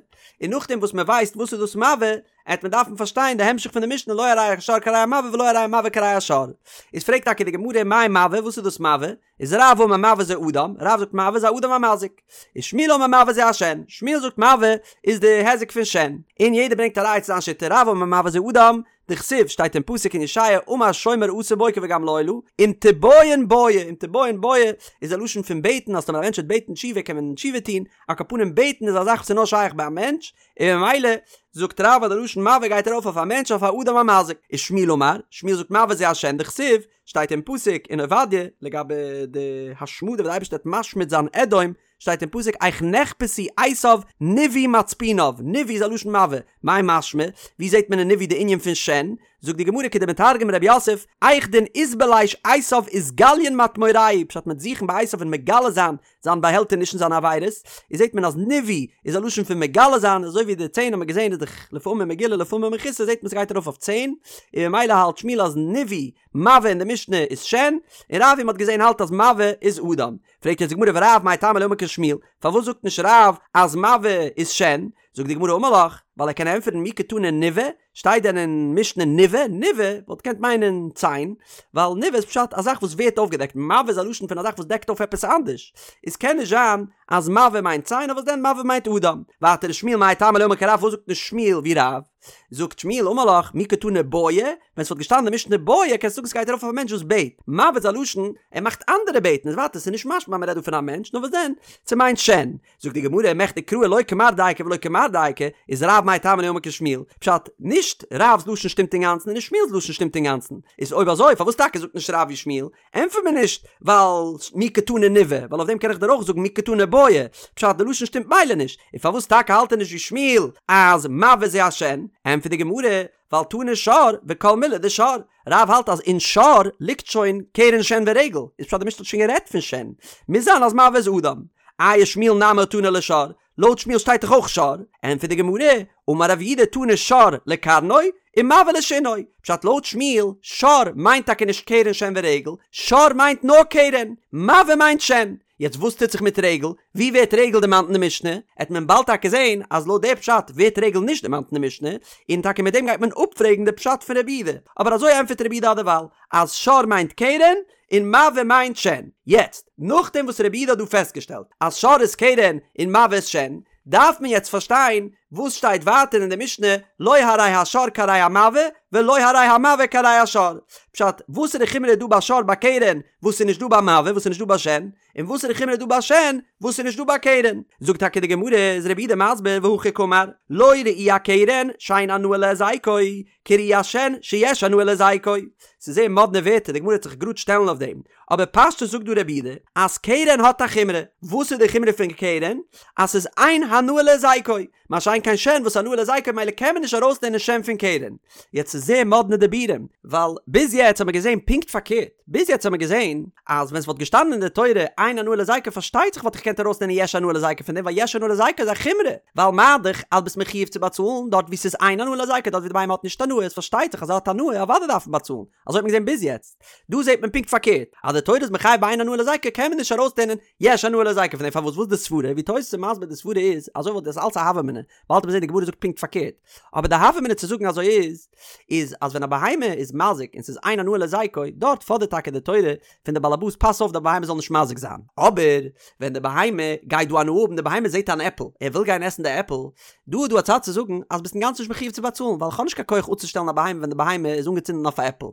און נאכדעם וואס מען ווייסט וואס איז דאס מבעה, עט מען דארפן פארשטיין די המשך פון די משנה לא הרי השור כהרי המבעה ולא הרי המבעה כהרי השור. איז פרעגט טאקע די גמרא מאי מבעה וואס איז דאס מבעה? איז רב אמר מבעה זה אדם, רב זאגט מבעה איז א אדם המזיק. איז שמואל אמר מבעה זה השן, שמואל זאגט מבעה איז די היזק פון שן. און יעדער ברענגט א ראיה צו זיין שיטה, רב אמר מבעה זה אדם, דכתיב שטייט אין פסוק אין ישעיה אמר שומר אסור בוקר וגם לילה, אם תבעיון בעי, אם תבעיון בעי איז א לשון פון בעטן אז טאמער א מענטש וועט בעטן תשובה קען מען תשובה טון, על כל פנים בעטן איז א זאך וואס איז נאר שייך ביי א מענטש, און ממילא זאגט רב אז די לשון מבעה גייט ארויף אויף א מענטש אויף א אדם המזיק, ושמואל אמר, שמואל זאגט מבעה זה השן דכתיב שטייט אין פסוק אין עובדיה לגבי די השמדה וואס די אייבערשטער וועט משמיד זיין אדום, שטייט אין פסוק איך נחפשו עשיו נבעו מצפוניו, נבעו איז א לשון מבעה, מאי משמע? ווי זעט מען אין נבעו די ענין פון שן? זאגט די גמרא כדמתרגם רב יוסף, היכדין אתבליש עשיו אתגליין מטמוריה, פשט מ'וועט זוכן ביי עשיו און מגלה זיין זיין באהעלטעניש און זיינע עבירות, איז זעט מען אז נבעו איז א לשון פון מגלה זיין, אזוי ווי די ציין האט מען געזען איז דאך לפעמים מגולה לפעמים מכוסה זעט מען ס'גייט ארויף אויף ציין, און ממילא האלט שמואל אז נבעו מבעה אין די משנה איז שן, און רב ווי מ'האט געזען האלט אז מבעה איז אדם. פרעגט יעצט די גמרא ורב מאי טעמא לא אמר כשמואל, פארוואס זאגט נישט רב אז מבעה איז שן? זאגט די גמרא אמר לך, ווייל ער קען ענטפערן מי קתני נבעה, שטייט דען אין משנה נבעה? נבעה וואלט געקענט מיינען ציין, ווייל נבעה איז פשט א זאך וואס ווערט אויפגעדעקט, מבעה איז א לשון פון א זאך וואס דעקט אויף עפעס אנדערש, איז קען נישט זיין אז מבעה מיינט ציין, נאר וואס דען מבעה מיינט אדם. ווייטער ושמואל מאי טעמא לא אמר כרב, פארוואס זאגט נישט שמואל ווי רב? זאגט שמואל אמר לך מי קתני בעי, ווען ס'וואלט געשטאנען אין משנה בעי קענסטו זאגן ס'גייט ארויף אויף א מענטש וואס בעט, מבעה איז א לשון ער מאכט אנדערע בעטן, איז ווייטער ס'איז נישט משמע אז מ'רעדט דא פון א מענטש, נאר וואס דען ס'מיינט שן. זאגט די גמרא, מכדי קראי לא כמר דייקא ולא כמר דייקא, איז רב מאי טעמא לא אמר כשמואל, פשט, נישט רב'ס לשון שטימט אינגאנצן און נישט שמואל'ס לשון שטימט אינגאנצן, איז אויב אזוי פארוואס טאקע זאגט נישט רב ווי שמואל? ענטפער מיר נישט ווייל מי קתני נבעה, ווייל אויף דעם קען איך דיר אויך זאגן מי קתני בעי, פשט די לשון שטימט מילא נישט, און פארוואס טאקע האלט ער נישט ווי שמואל אז מבעה זה השן? ענטפערט די גמרא, ווייל תני שור וכל מילי דשור, רב האלט אז אין שור ליגט שוין קרן שן ורגל, איז פשט די משנה האט שוין גערעדט פון שן, מוז זיין אז מבעה איז אדם. איי ושמואל נמי תני ליה שור, לויט שמואל שטייט דאך אויך שור, ענטפערט די גמרא, אמר רב יהודה תני שור לקרנו ומבעה לשינו, פשט לויט שמואל, שור מיינט טאקע נישט קרן שן ורגל, שור מיינט נאר קרן, מבעה מיינט שן. יעצט וואס טוט זיך מיט רגל? ווי ווערט רגל דערמאנט אין די משנה? עט מען באלד טאקע זעהן אז לויט די פשט ווערט רגל נישט דערמאנט אין די משנה, און טאקע מיט דעם גייט מען אפפרעגן די פשט פון רבי יהודה, אבער אזוי ענטפערט רבי יהודה אדערווייל, אז שור מיינט קרן און מבעה מיינט שן. יעצט, נאכדעם וואס רבי יהודה האט דא פעסטגעשטעלט אז שור איז קרן און מבעה איז שן, דארף מען יעצט פארשטיין וואס שטייט ווייטער אין די משנה לא הרי השור כהרי המבעה ולא הרי המבעה כהרי השור. פשט, וואסערע חומרא איז דא ביי שור ביי קרן וואס איז נישט דא ביי מבעה וואס איז נישט דא ביי שן, און וואסערע חומרא איז דא ביי שן וואס איז נישט דא ביי קרן. זאגט טאקע די גמרא, איז רבי יהודה מסביר והכי קאמר, לא ראי הקרן שאין הנאה להזיקו, כראי השן שיש הנאה להזיקו. ס'איז זייער מאדנע ווערטער, די גמרא וועט זיך גראד שטעלן אויף דעם. אבער פשטות זאגט דא רבי יהודה אז קרן האט א חומרא. וואס איז די חומרא פון קרן? אז ס'איז אין הנאה להזיקו. מה שאין כן שן וואס הנאה להזיקו ממילא קען מען נישט ארויסלערנען שן פון קרן. יעצט ס'איז זייער מאדנע דיבורים, ווייל ביז יעצט האט מען געזען פונקט פארקערט. ביז יעצט האט מען געזען אז ווען ס'וואלט געשטאנען אין די תורה אין הנאה להזיקו פארשטייט זיך וואלט איך געקענט ארויסלערנען יש הנאה להזיקו פון דעם ווייל יש הנאה להזיקו איז א חומרא ווייל מה דאך אז ביסט מחיוב צו באצאלן דארט וואו ס'איז אין הנאה להזיקו דארט ווי די בהמה האט נישט הנאה איז פארשטייט זיך אז ער האט הנאה אוודאי דארף מען באצאלן אזוי האט מען געזען ביז יעצט דא זעט מען פונקט פארקערט אז די תורה איז מחייב ביי אין הנאה להזיקו קען מען נישט ארויסלערנען יש הנאה להזיקו פון דעם פארוואס וואס די סברה ווי תוס' איז מסביר די סברה איז אזוי וואלט דאס אלץ א הוה אמינא באלד וועט מען זען די גמרא זאגט פונקט פארקערט אבער די הוה אמינא צו זאגן אזוי איז איז אז ווען א בהמה איז מזיק און ס'איז אין הנאה להזיקו, דארט פאדערט טאקע די תורה פון די באלעבאס פאס אויף די בהמה זאל נישט מזיק זיין. אבער ווען די בהמה גייט דא הנאה האבן, די בהמה זעט אן עפל, ער וויל גיין עסן די עפל, דא איז דא א צד צו זאגן אז ביסט אינגאנצן נישט מחיוב צו באצאלן ווייל כ'האב נישט קיין כח אפצושטעלן א בהמה ווען די בהמה איז אנגעצינדן אויף א עפל.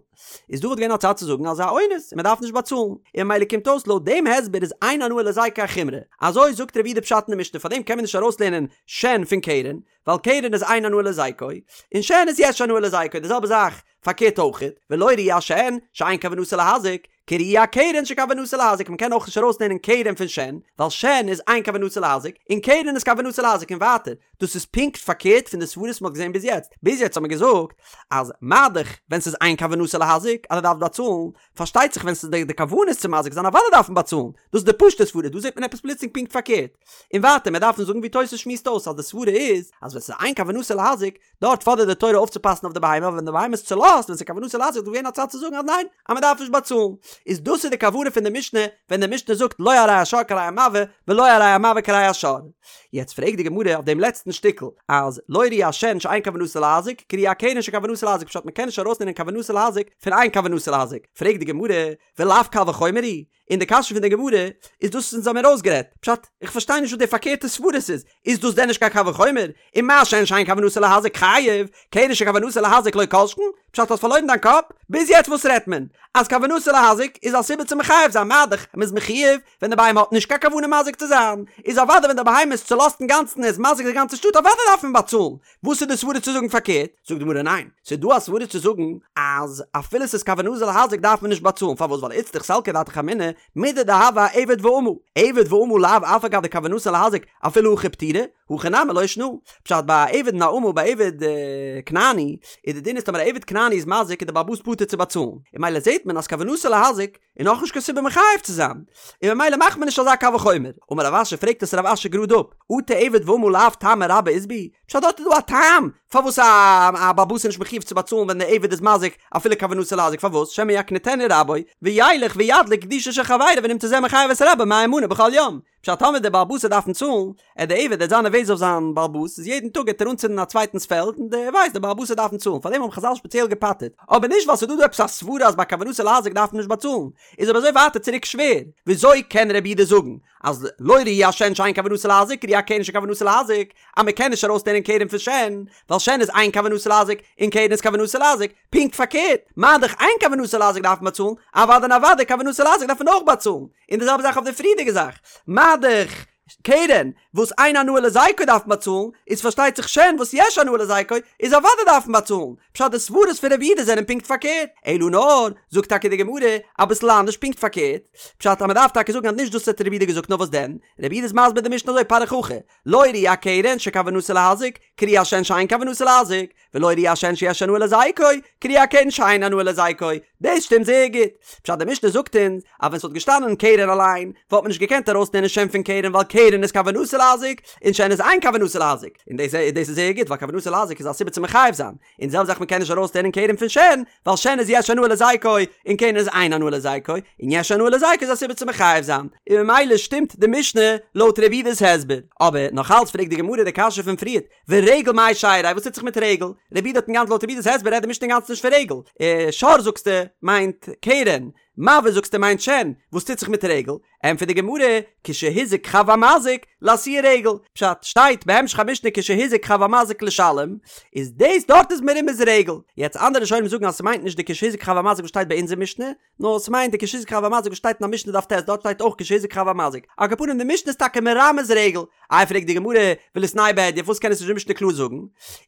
איז דא וואלט געווען א צד צו זאגן אז ס'איז א אונס און מ'דארף נישט באצאלן. און ממילא קומט אויס לויט דעם הסבר איז אין הנאה להזיקו א חומרא. אזוי זאגט רבי יהודה פשט אין די משנה פארדעם קען מען נישט ארויסלערנען שן פון קרן, ווייל קרן איז אין הנאה להזיקו, און שן איז יש הנאה להזיקו, די זעלבע זאך פארקערט אויכעט, ולא ראי השן שאין כוונתו להזיק, כראי הקרן שכוונתו להזיק, מען קען אויך נישט ארויסלערנען קרן פון שן, ווייל שן איז אין כוונתו להזיק, און קרן איז כוונתו להזיק און ווייטער, דאס איז פונקט פארקערט פון די סברות וואס מען האט געזען ביז יעצט, ביז יעצט האט מען געזאגט אז מה דאך ווען ס'איז אין כוונתו להזיק אז ער דארף באצאלן, פארשטייט זיך ווען ס'איז די כוונה איז צו מזיק זיין אוודאי דארף מען באצאלן, דאס איז די פשוט'ע סברה, דא זעט מען עפעס פלוצלינג פונקט פארקערט. און ווייטער מיר דארפן זאגן ווי תוס' שמועסט אויס אז די סברה איז אז ווען ס'איז אין כוונתו להזיק, דארט פאדערט די תורה אויפצופאסן אויף די בהמה, אבער ווען די בהמה איז צולאזט ווען ס'איז כוונתו להזיק איז דא געווען א צד צו זאגן אז ניין, אז מ'דארף נישט באצאלן. איז דאס איז די כוונה פון די משנה ווען די משנה זאגט לא הרי השור כהרי המבעה ולא הרי המבעה כהרי השור. יעצט פרעגט די גמרא אויף דעם לעצטן שטיקל אז לא ראי השן שאין כוונתו להזיק כראי הקרן שכוונתו להזיק פשט מ'קען נישט ארויסנעמען כוונתו להזיק פון אין כוונתו להזיק פרעגט די גמרא ולאו קל וחומר הוא און די קשיא פון די גמרא איז דאס אונז האמיר אויסגערעדט פשט איך פארשטיי נישט וואס די פארקערטע סברות איז איז דאס דען נישט קיין קל וחומר ומה שן שאין כוונתו להזיק חייב קרן שכוונתו להזיק לא כל שכן? פשט האסט פארלוירן דיין קאפ? ביז יעצט וואס רעדט מען? אז כוונתו להזיק איז א סיבה צו מחייב זיין מה דאך מ'איז מחויב ווען די בהמה האט נישט קיין כוונה מזיק צו זיין, איז אוודאי ווען די בהמה איז צולאזט אינגאנצן און איז מזיק די גאנצע שטאט אוודאי דארף מען באצאלן, וואס איז די סברה צו זאגן פארקערט? זאגט די גמרא ניין, ס'איז דא א סברה צו זאגן אז אפילו ס'איז כוונתו להזיק דארף מען נישט באצאלן, פארוואס ווייל איצטריך סלקא דעתך אמינא מידי דהוה אעבד ואמה, עבד ואמה לאו אף על גב דכוונתן להזיק אפילו הכי פטירי, הכא נמי לא שנא. פשט ביי א עבד און א אמה ביי עבד כנעני איז די דין איז טאמער א עבד כנעני איז מזיק איז די בעל הבית פטור צו באצאלן, און ממילא זעט מען אז כוונתו להזיק איז נאכנישט קיין סיבה מחייב צו זיין, און ממילא מאכט מען נישט אזא קל וחומר. אמר רב אשי פרעגט עס רב אשי גראד אפ, אטו עבד ואמה לאו טעמא רבה אית בהו, פשט דארט איז דא א טעם פארוואס א בעל הבית איז נישט מחויב צו באצאלן ווען די עבד איז מזיק אפילו כוונתו להזיק פארוואס שמא יקניטנו רבו וילך וידליק גדישו של חברו ונמצא זה מחייב את רבו מאה מנה בכל יום פשט טאמער דער בעל הבית וועט דארפן צאלן עט דער עבד עט זיין נערוועז אויף זיין בעל הבית איז יעדן טאג עט ער אנצינדן א צווייטנס פעלד און דער ווייסט דער בעל הבית וועט דארפן צאלן פארדעם האבן חזל שפעציעל געפטר'ט אבער נישט ווייל ס'איז דא דא עפעס א סברה אז ביי כוונתו להזיק דארף מען נישט באצאלן איז אבער אזוי ווייטער צוריק שווער וויאזוי קען רבי יהודה זאגן אז לא ראי השן שאין כוונתו להזיק כראי הקרן שכוונתו להזיק אז מען קען נישט ארויסלערנען קרן פון שן ווייל שן איז אין כוונתו להזיק און קרן איז כוונתו להזיק פונקט פארקערט מה דאך אין כוונתו להזיק דארף מען באצאלן אוודאי און אוודאי כוונתו להזיק דארף מען אויך באצאלן און די זעלבע זאך אויף די פריערדיגע זאך מה דאך קרן וואס אין הנאה להזיקו דארף מען באצאלן איז פארשטייט זיך שן וואס יש הנאה להזיקו איז אוודאי דארף מען באצאלן פשט די סברות פון רבי יהודה זענען פונקט פארקערט אלא נאר זאגט טאקע די גמרא אביסל אנדערש פונקט פארקערט פשט אז מען דארף טאקע זאגן אז נישט דאס האט רבי יהודה געזאגט נאר וואס דען רבי יהודה איז מסביר די משנה אזוי פריך הכי לא ראי הקרן שכוונתו להזיק כראי השן שאין כוונתו להזיק ולא ראי השן שיש הנאה להזיקו כראי הקרן שאין הנאה להזיקו דאס שטימט זייער גוט פשט די משנה זאגט אונז אז ווען ס'וואלט געשטאנען קרן אליין וואלט מען נישט געקענט ארויסלערנען שן פון קרן ווייל קרן איז כוונתו להזיק און שן איז אין כוונתו להזיק און דאס דאס איז זייער גוט ווייל כוונתו להזיק איז א סיבה צו מחייב זיין און די זעלבע זאך מ'קען נישט ארויסלערנען קרן פון שן ווייל שן איז יש הנאה להזיקו און קרן איז אין הנאה להזיקו און יש הנאה להזיקו איז א סיבה צו מחייב זיין און ממילא שטימט די משנה לויט רבי יהודה'ס הסבר אבער נאך אלץ פרעגט די גמרא די קשיא פון פריערט ורגל מאי שייריה, וואס טוט זיך מיט רגל? רבי יהודה האט אינגאנצן לויט רבי יהודה'ס הסבר רעדט די משנה אינגאנצן נישט פון רגל. אה, שור זאגסטו מיינט קרן, מבעה זאגסטו מיינט שן, וואס טוט זיך מיט רגל? ענטפערט די גמרא, כשהזיק חב המזיק, לאתויי רגל, פשט, שטייט בהמשך המשנה כשהזיק חב המזיק לשלם, איז דאס דארט איז מרומז רגל. יעצט אנדערע ראשונים זאגן אז ס'מיינט נישט די כשהזיק חב המזיק וואס שטייט ביי אונזער משנה, נאר ס'מיינט די כשהזיק חב המזיק וואס שטייט אין א משנה דף ט', דארט שטייט אויך כשהזיק חב המזיק. על כל פנים די משנה איז טאקע מרמז רגל. איי פרעגט די גמרא, וליתנהו בהדיא, פארוואס קען עס נישט די משנה קלאר זאגן?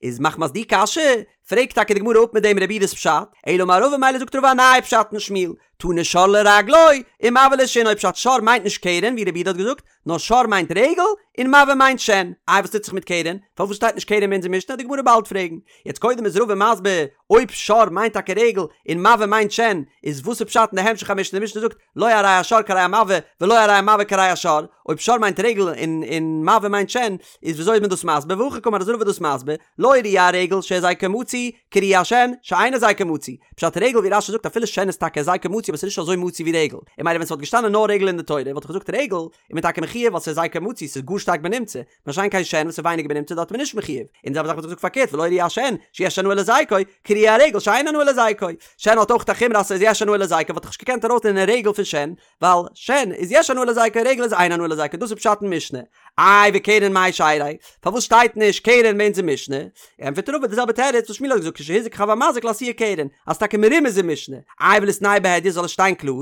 איז מחמת די קשיא, פרעגט טאקע די גמרא אפ מיט דעם רבי יהודה'ס פשט, אלא אמר רבא מילא זאגט רבא א נייע פשט אין שמואל, תני שור לרגלו, ומבעה לשינו, פשט שור מיינט נישט קרן ווי רבי יהודה האט געזאגט, נאר שור מיינט רגל, און מבעה מיינט שן. איי וואס טוט זיך מיט קרן? פארוואס שטייט נישט קרן אין אונזער משנה? די גמרא באלד פרעגן. יעצט קודם איז רבא מסביר, אויב שור מיינט טאקע רגל, און מבעה מיינט שן, איז וואס איז פשט אין די המשך המשנה? די משנה זאגט, לא הרי השור כהרי המבעה, ולא הרי המבעה כהרי השור. אויב שור מיינט רגל און און מבעה מיינט שן, איז וויאזוי איז מען דאס מסביר? והכי קאמר איז רבא דאס מסביר, לא ראי הרגל שהזיקו מצוי, כראי השן, שאין הזיקו מצוי. פשט רגל ווי רש"י זאגט אפילו שן איז טאקע הזיקו מצוי אבער ס'איז נישט אזוי מצוי ווי רגל. און מילא ווען ס'וואלט געשטאנען נאר רגל אין די תורה וואלט איך געזאגט רגל איז מען טאקע מחויב ווייל ס'איז הזיקו מצוי ס'איז גאר שטארק בנמצא. מה שאין כן שן וואס איז ווייניגער בנמצא דארט איז מען נישט מחויב. און די זעלבע זאך וואלט איך געזאגט פארקערט ולא ראי השן שיש הנאה להזיקו, כראי הרגל שאין הנאה להזיקו. שן האט אויך א חומרא אז ס'איז יש הנאה להזיקו וואלט איך נישט געקענט ארויסלערנען רגל פון שן ווייל שן איז יש הנאה להזיקו רגל איז אין הנאה להזיקו דאס איז פשט אין משנה. איי וקרן מאי שייריה? פארוואס שטייט נישט קרן ביי אונזער משנה? ענטפערט רבא די זעלבע תירוץ וואס שמואל האט געזאגט כשהזיק חב המזיק לאתויי קרן אז טאקע מרומז אין משנה. איי וליתנהו בהדיא זאל עס שטיין קלאר?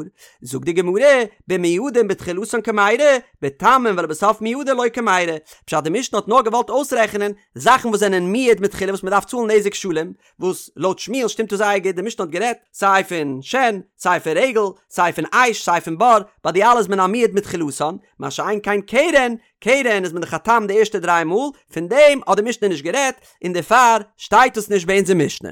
זאגט די גמרא במועדין בתחילתן קמיירי בתמין ולבסוף מועדין לא קמיירי. פשט די משנה האט נאר געוואלט אויסרעכענען זאכן וואס זענען מועד מתחילה וואס מען דארף צאלן נזק שלם, וואס לויט שמואל שטימט עס זייער גוט, די משנה האט גערעדט סיי פון שן, סיי פון רגל, סיי פון אש, סיי פון בור, ביי די אלע איז מען א מועד מתחילתן, מה שאין כן קרן, קרן איז מען דאך א תם די ערשטע דריי מאל, פון דעם האט די משנה נישט גערעדט, און דערפאר שטייט עס נישט ביי אונזער משנה.